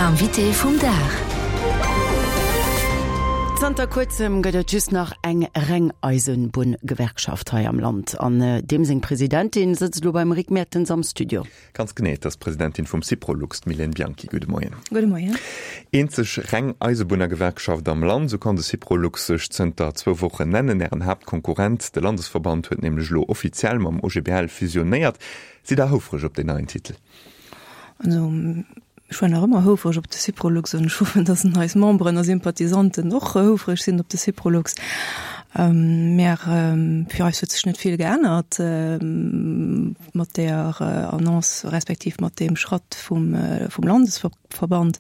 Invité vum Dag. Zanter kuerzem gëtt et just nach eng reng Eisenbunngewerkschaft hei am Land. An deem seng Presidentin sëtzt elo beim Rick Mertens am Studio. Ganz genee, et ass d'Presidentin vum Syprolux, d'Mylène Bianchy. Gudde Moien. Gudde Moien. Eenzeg reng Eisebunnergewerkschaft am Land, esou kann de Syprolux sech zënter zwou Wochen nennen. Ären Haaptkonkurrent, de Landesverband, huet nämlech elo offiziell mam OGBL fusionéiert. Sidd Der houfreg op deen neien Titel? Also ech war nach ëmmer houfreg op de Syprolux an ech hoffen, datt eis Memberen a Sympathisanten och houfreg sinn op de Syprolux. Mä fir eis huet sech net vill geännert mat där Annonce respektiv mat deem Schratt vum Landesverband.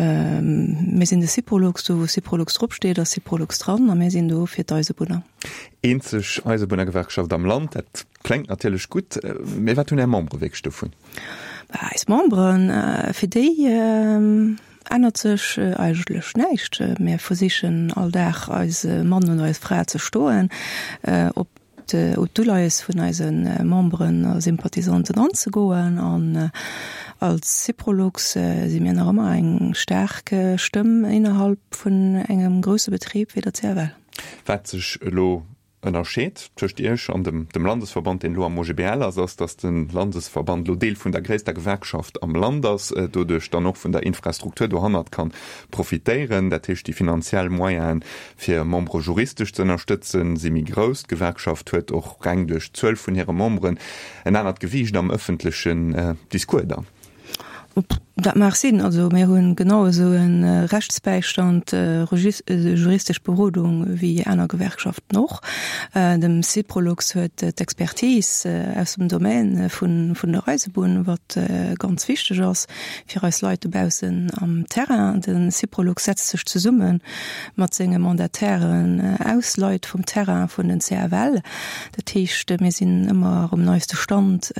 Mir sinn de Syprolux, do wou Syprolux drop steet, ass Syprolux dran a mir sinn do fir d'Eisebunner. Eenzeg Eisebunnergewerkschaft am Land, dat Klengt natierlech gutt, mee wat hunn Är Membere wierklech dovun? Eis Memberen, fir déi ännert sech eigentlech näischt. Mir versichen all Dag eise Mann oder eis Fra ze stoen, op d'Uleies vun eise Memberen a Sympathisanten anzegoen. An als Syprolux si mir nach ëmmer eng staark Stëmm innerhalb vun engem grousse Betrib wéi der CFL. Wat sech elo Ënnerscheed tëscht Iech an dem dem Landesverband, deen elo am OGBL ass, ass, datt de Landesverband elo Deel vun der gréisster Gewerkschaft am Land ass, doduerch dann och vun der Infrastruktur dohannert kann profitéieren. Dat heescht, déi finanziell Moyenen, fir Membere juristesch ze ënnerstëtzen, si méi grouss. D'Gewerkschaft huet och reng duerch d'Zuel vun hire Memberen en anert Gewiicht am ëffentlechen Discours dann. Dat mag sinn. Also mir hu genau esou e Rechtsbäistand, juristesch Berodung wéi aner Gewerkschaften och. Dem Syprolux huet d'Expertise aus dem Domaine vun der Eisebunn, wat ganz wichteg ass fir eis Leit dobaussen am Terrain. De Syprolux setzt sech zesumme mat senge Mandatairen aus Leit vum Terrain vun den CFL. Dat heescht, mir sinn ëmmer um neiste Stand,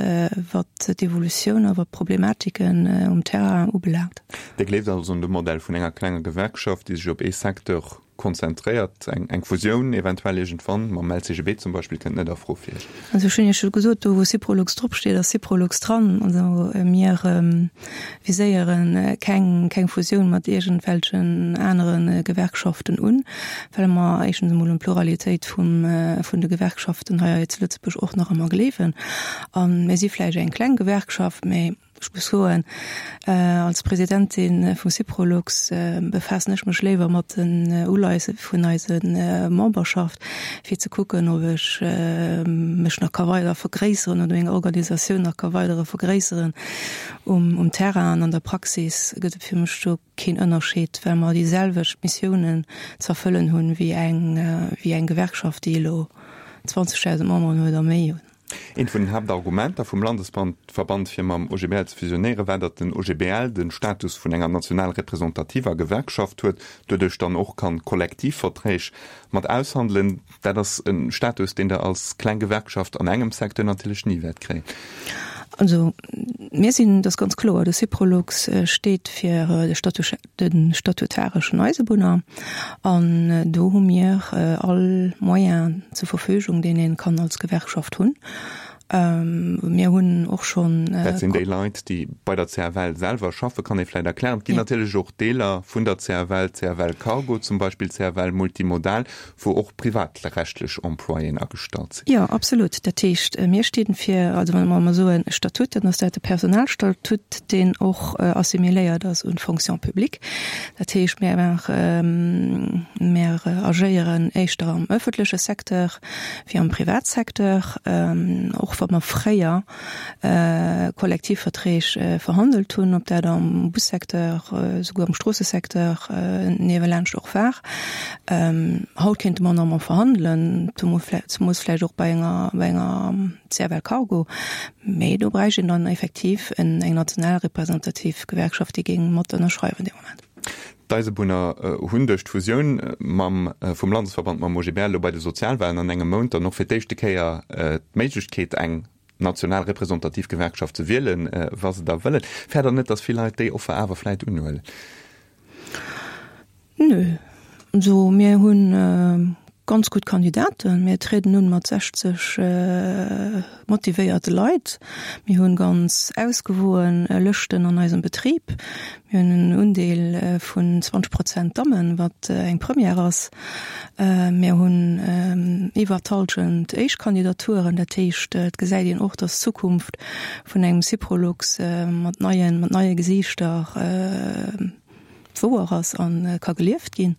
wat d'Evolutioun a wat d'Problematiken um Terrain ubelaangt. Dir gleeft also un de Modell vun enger klenger Gewerkschaft, déi sech op ee Secteur konzentréiert. Eng Fusioun eventuell iergendwann mam LCGB zum Beispill kënnt net a Fro fir Iech? Also ech hunn Iech jo gesot, do wou Syprolux dropsteet, ass Syprolux dran. Also mir viséiere keng keng Fusioun mat iergendwelchen anere Gewerkschaften un, well mer éischtens emol un d'Pluralitéit vum vun de Gewerkschaften hei zu Lëtzebuerg och nach ëmmer gleewen. A mir si vläicht eng kleng Gewerkschaft, mä ech muss soen, als Presidentin vum Syprolux befaassen ech mech léiwer mat den Uleiesse vun eise Memberschaft, fir ze kucken, ob ech mech nach ka weider vergréisseren oder meng Organisatioun nach ka weidere vergréisseren. Um Terrain an an der Praxis gëtt et fir mech do keen Ënnerscheed, well mer déi selwecht Missiounen ze erfëllen hunn wéi eng, wéi eng Gewerkschaft, déi elo 20.000 Memberen huet a méi. Eent vun den Haaptargumenter vum Landesverband fir mam OGBL ze fusionéieren, war, datt den OGBL de Status vun enger national representativer Gewerkschaft huet, doduerch dann och kann Kollektivverträg mat aushandelen. Dat ass e Status, deen Der als kleng Gewerkschaft an engem Secteur natierlech ni wäert kréien. Also mir sinn, dat ass ganz kloer, de Syprolux steet fir de de statutareschen Eisebunner an do hu mir all Moyen zur Verfügung, deen ee kann als Gewerkschaft hunn. Mir hunn och schonn. Dat sinn déi Leit, déi bei der CFL selwer schaffen, kann ee vläicht erklären. Et ginn natierlech och Deeler vun der CFL, CFL Cargo zum Beispill, CFL Multimodal, wou och privatrechtlech Employéen agestallt sinn. Jo, absolut. Dat heescht, mir sti fir, also wa mer soen Statut, dann ass dat de Personalstatut, deen och assimiléiert ass un d'Fonction publique. Dat heescht, mir maachen, mir agéieren éischter am öffentleche Secteur wéi am Privatsecteur, och wa mer fréier Kollektivverträg verhandelt hunn, ob dat am Bussecteur, souguer am Stroossesecteur niewelaanscht och war. Haut kéinte mer nach emol verhandelen, zemoos vläicht och bei enger, bei enger CFL Cargo, mee do bräicht een dann effektiv eng national representativ Gewerkschaft, déi géing mat ënnerschreiwen dee Moment. D'Eisebunner hunn duerch d'Fusioun mam vum Landesverband mam OGBL elo bei de Sozialwalen an engem Mount dann och fir d'éischte Kéier d'Méiglechkeet eng national representativ Gewerkschaft ze wielen, wa se da wëllen. Fäert Der net, datt vill Leit déi Offer awer vläit unhuelen? Nö. Also mir hunn. Ganz gutt Kandidaten. Mir trieden un mat 60 motivéierte Leit. Mir hunn ganz ausgewoen Lëschten an eisem Betrib. Mir hunn en Undeel vun 20 Prozent Dammen, wat eng Première ass. Mir hunn iwwer d'Hallschent Éischt-Kandidaturen. Dat heescht, et gesäit een och, dass d'Zukunft vun engem Syprolux mat neien, mat neie Gesiichter wouer ass a ka gelieft ginn.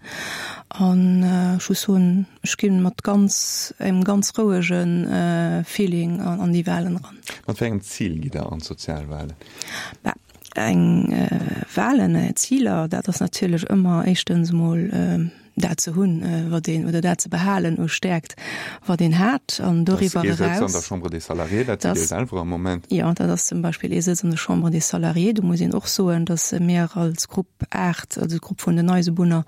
An ech muss soen, ech gi mat ganz, engem ganz rouege Feeling an déi Wahlen eran. Mat wéi engem Zil gitt Der an d'Sozialwahlen? Bah, eng Wahlen, Ziler, dat ass natierlech ëmmer éischtens emol dat ze hunn, wat een, oder dat ze behalen u Stäerkt, wat een hat, an doriwwer eraus. Dat ass ee Sëtz an der Chambre des Salariés, dat sidd Dir selwer am Moment. Jo, dat ass zum Beispill ee Sëtz an der Chambre des Salariés. Do muss een och soen, datt mir als Grupp 8, also d'Grupp vun den Eisebunner,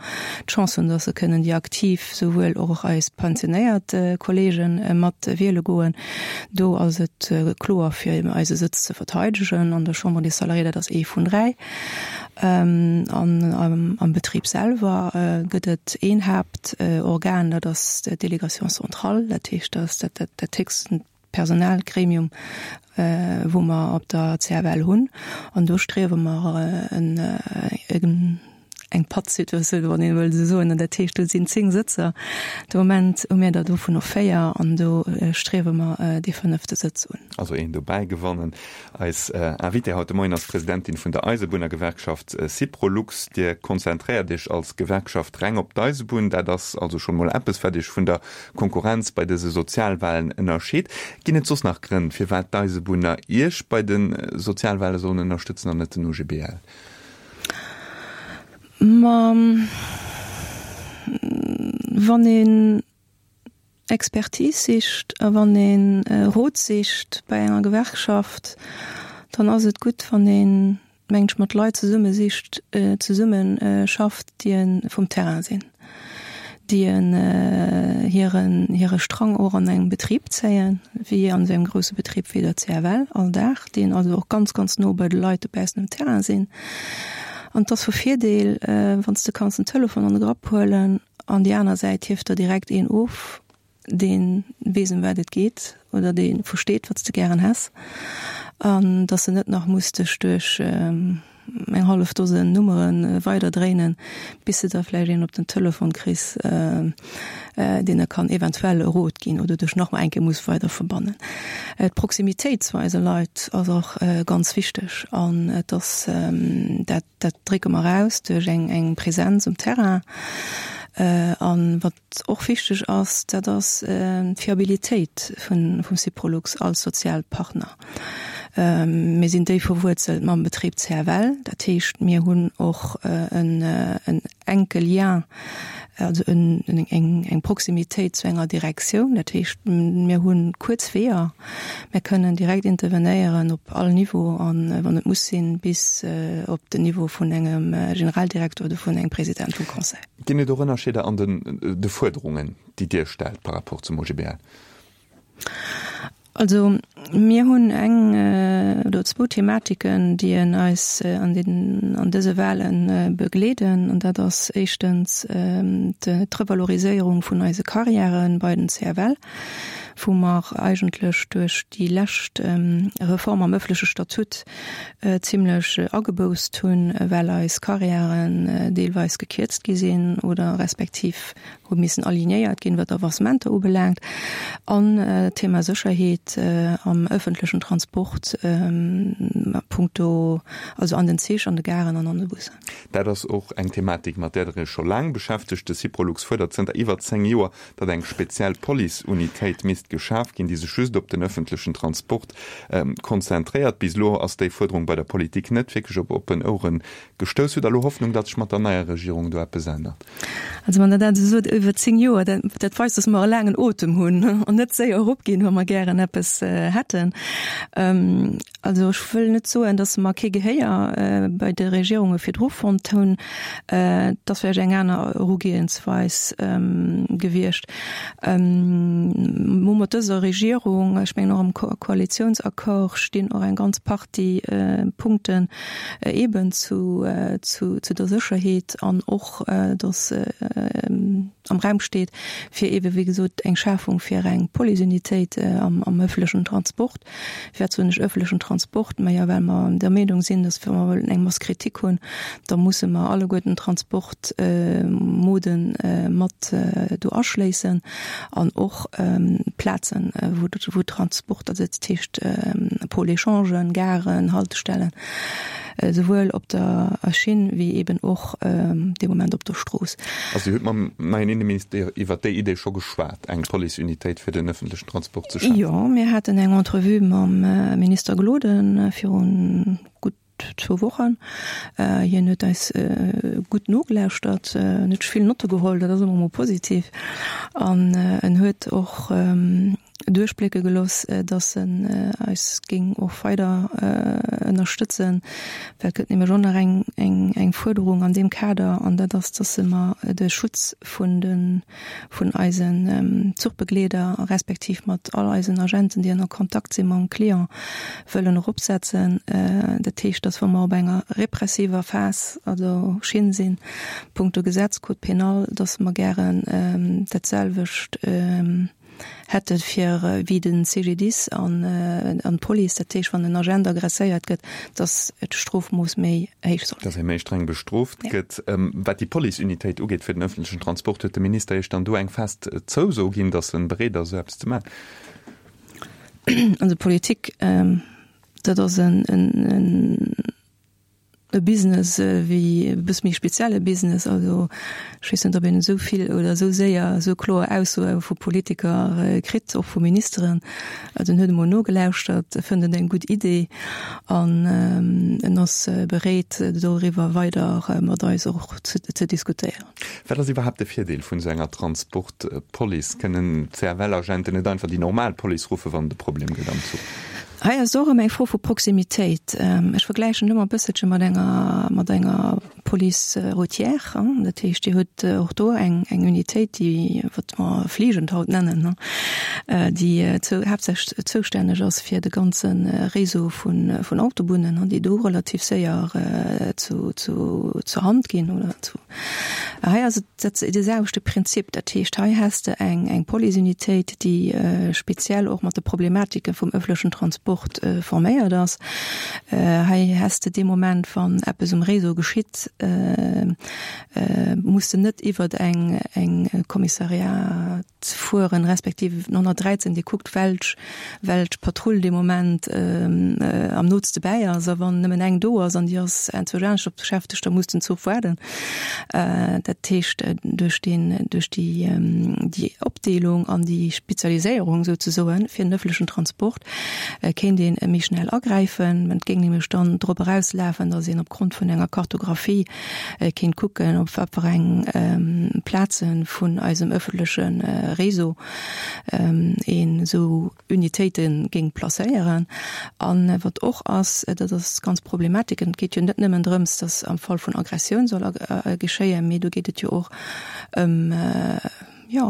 d'Chance hunn, datt se kënnen déi aktiv, souwuel och eis pensionéiert Kollege mat wiele goen. Do ass et kloer, fir eise Sëtz ze verteidegen an der Chambre des Salariés, dat ass ee vun 3. An am Betrib selwer gëtt et een Haaptorgan, dat ass d'Délégation centrale, dat heescht, dat ass dat héchsten Personalgremium, wou mer op der CFL hunn. An do striewe mer eng Pattsituatioun, wann een wëll esou soen. Dat heescht, do sinn 10 Sëtzer. De Moment hu mir der dovunner 4 an do striewe mer dee fënnefte Sëtz un. Also een dobäi gewannen. Eis Invitée haut de Moien ass d'Presidentin vun der Eisebunnergewerkschaft Syprolux. Dir konzentréiert Iech als Gewerkschaft reng op d'Eisebunn. Dat ass also schonn mol eppes, wat Iech vun der Konkurrenz bei dëse Sozialwahlen ënnerscheet. Ginn et soss nach Grënn, firwat d'Eisebunner Iech bei de Sozialwahle sollen ënnerstëtzen an net den OGBL? Ma wann een Expertise sicht a wann ee Rot sicht bei enger Gewerkschaft, dann ass et gutt, wann een, mengen ech, mat Leit zesumme sicht, zesumme schafft, déi vum Terrain sinn, déi hiren, hire Strang och an engem Betrib zéien, wéi an esou engem grousse Betrib wéi der CFL all Dag, déi also och ganz, ganz no bei de Leit dobaussen um Terrain sinn. An et ass vu Virdeel, wann s de kanns den Telefon an de Grapp huelen An déi aner Säit hieft der direkt een of, dee weess ëm wat et geet oder dee versteet, wat s de gären häss, an dass de net nach muss dech duerch eng hallef Dosen Nummere weider dréinen, bis de da vläicht een op den Telefon kriss, deen der kann eventuell e Rot ginn oder dech nach eng Kéier muss weider verbannen. D'Proximitéit zu eise Leit ass och ganz wichteg an et ass dat, Dat drécke mer aus duerch eng Präsenz um Terrain. An wat och wichteg ass, dat ass d'Fiabilitéit vum Syprolux als Sozialpartner. Mir sinn déif verwuerzelt mam Betrib CFL. Dat heescht, mir hunn och en enke Lien, also eng Proximitéit zu enger Direktioun. Dat heescht, mir hu kuerz Weeër. Mir kënnen direkt intervenéieren op all Niveau an, wann et muss sinn, bis op den Niveau vun engem Generaldirekter oder vun engem President vum Conseil. Ginn et och Ënnerscheeder an de Fuerderungen, déi Dir stellt par rapport zum OGBL? Also mir hunn eng oder zwou Thematiken, déi en eis an den, an dëse Wahle begleeden. An dat ass éischtens d'Revaloriséierung vun eise Carrièren bei den CFL, wou mer eigentlech duerch déi lescht Reform am ëffentleche Statut zimlech ageboußt hunn, well eis Carrièren deelweis gekierzt gi sinn oder respektiv hu missen alignéiert ginn, wat Avancementer ubelaangt, an d'Thema Sécherheet am ëffentlechen Transport a punkto, also an den Zich, an de Garen an an de Bussen. Dat ass och eng Thematik, mat där Der Iech scho laang beschäftegt. De Syprolux fuerdert zënter iwwer 10 Joer, datt eng speziell Police-Unitéit misst geschaf ginn, déi sech just op den ëffentlechen Transport konzentréiert. Bis elo ass déi Fuerderung bei der Politik net wierklech op oppen Ouere gestouss. Hutt Der elo Hoffnung, datt sech mat der neier Regierung do eppes ännert? Also wann Der dat esou sot, iwwer 10 Joer, dat, dat weist, dass mer e laangen Otem hunn an net séier eropginn, wa mer gären eppes hätten. Also ech wëll net soen, dass mer kee Gehéier bei de Regierunge virdru fonnt hunn. Et ass vläicht eng aner Erugehensweis gewiescht. Mir hu mat dëser Regierung, ech mengen och am Koalitionsaccord stinn och eng ganz Partie Punkten eeben zu zu der Sécherheet an och, datt am Raum steet, fir eebe wéi gesot eng Schafung fir eng Policeunitéit am ëffentlechen Transport. Firwat soen ech ëffentlechen Transport? Majo, well mer der Meenung sinn, datt wa mer wëllen eng Masse critique hunn, da musse mer alleguerten d'Transportmoden mat do aschléissen an och Plazen, wou Transport, also dat heescht Pôle échangen, Garen, Haltestellen, Esouwuel op der Schinn wéi eben och dee Moment op der Strooss. Also Dir hutt mam neien Inneminister iwwert déi Idee scho geschwat, eng Policeunitéit fir den ëffentlechen Transport ze schafen? Jo, mir haten eng Entrevue mam Minister Gloden virun gutt zwou Wochen. Hien huet eis gutt nogelauschtert, en huet sech vill Notte geholl, dat ass ëmmer emol positiv. An en huet och duerchblécke gelooss, datt en eis géing och weider ënnerstëtzen, well et gëtt nämlech och nach eng, eng, eng Fuerderung an deem Kader, an dat ass, datt mer de Schutz vun de, vun eisen Zuchbegleeder respektiv mat all eisen Agenten, déi an Kontakt si mam Client, wëllen eropsetzen. Dat heescht, datt wa mer op enger repressiver Phas, also Schinn sinn, punkto Gesetz, Code pénal, datt mer gären datselwecht hätte fir wéi de CGDIS an d'Police, dat heescht wann en Agent agresséiert gëtt, datt d'Strofmooss méi héich soll sinn. Datt ee méi streng bestrooft gëtt. Wat déi Police-Unitéit ugeet fir den ëffentlechen Transport, huet de Minister Iech dann do eng fest Zouso ginn, datt e bereet ass esou eppes ze maachen? Also Politik, dat ass en E Business wéi e bësse méi spezielle Business. Also ech weess net, ob een esou vill oder esou séier esou kloer Aussoe vu Politiker kritt, och vu Ministeren. Also en huet emol nogelauschtert, e fënnt et eng gutt Idee an en ass bereet, doriwwer weider mat eis och ze diskutéieren. Wat ass iwwerhaapt de Virdeel vun esou enger Transportpolice? Kënnen d'CFL-Agenten net einfach déi normal Police ruffen, wann et e Problem gëtt am Zuch? Hei ass et och ëm eng Fro vu Proximitéit. Ech vergläichen et ëmmer e bësselche mat enger, mat enger Police routière. Dat heescht, Dir hutt och do eng, eng Unitéit, déi, wat mer fliegend haut nennen, déi zou, haaptsächlech zoustänneg ass fir de ganze Réseau vun, vun Autobunnen, déi do relativ séier zu, zu, zur Hand ginn oder zu. Hei ass et dat de selwechte Prinzip. Dat heescht, hei häss de eng, eng Policeunitéit, déi speziell och mat de Problematike vum ëffentlechen Transport forméiert ass. Hei häss de dee Moment, wann eppes um Réseau geschitt, muss de net iwwert eng, eng Kommissariat, fueren, respektiv den 113, dee kuckt, welch, welch Patrull dee Moment am nootste bäi ass. A wann nëmmen eng do ass an déi ass enzwousch anescht op beschäftegt, da muss den Zuch waarden. Dat heescht, duerch deen, duerch déi, déi Opdeelung an déi Spezialiséierung souzesoen fir den ëffentlechen Transport kéint een méi schnell agräifen. Et géing nämlech dann drop erauslafen, datt een opgrond vun enger Kartographie kéint kucken, op wat fir eng Plaze vun eisem ëffentleche Réseau een esou Unitéite géing placéieren. A wat och ass, dat ass ganz Problematik, et geet jo net nëmmen drëms, datt am Fall vun Aggressioun soll geschéien, mee do geet et jo och ëm, jo,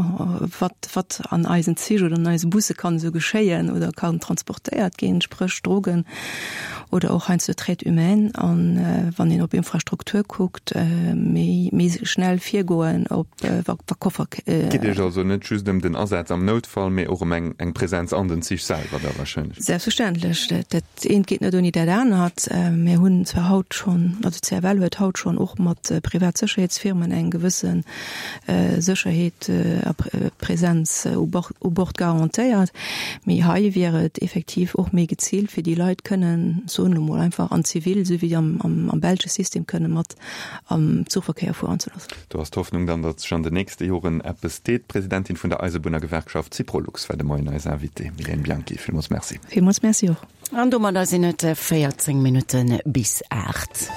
wat, wat an eisen Zich oder an eise Busse kann esou geschéien oder kann transportéiert ginn, spréch Drogen oder och heiansdo Traite humaine. An wann een op Infrastruktur kuckt, méi, méi schnell virgoen op wa, wa Koffer. Et geet Iech also net just ëm den Asaz am Noutfall, mee och ëm eng, eng Präsenz an den Zich selwer da wahrscheinlech? Selbstverständlech. Dat eent geet net ouni dat anert. Mir hunn zwar haut schonn, also d'CFL huet haut schonn och mat privat Sécherheetsfirmen eng gewësse Sécherheet a Präsenz u Bord garantéiert. Mee hei wier et effektiv och méi geziilt, fir déi Leit kënnen, soen elo mol einfach, an Zivil, esou wéi am belsche System, kënne mat am Zuchverkéier fueren ze loossen. Do ass d'Hoffnung dann, datt sech an den nächste Joren eppes deet. D'Presidentin vun der Eisebunnergewerkschaft Syprolux war de Moien eis Invitée. Mylène Bianchi, villmools Merci. Villmools Merci och. An domadder sinn et 14 Minutte bis 8.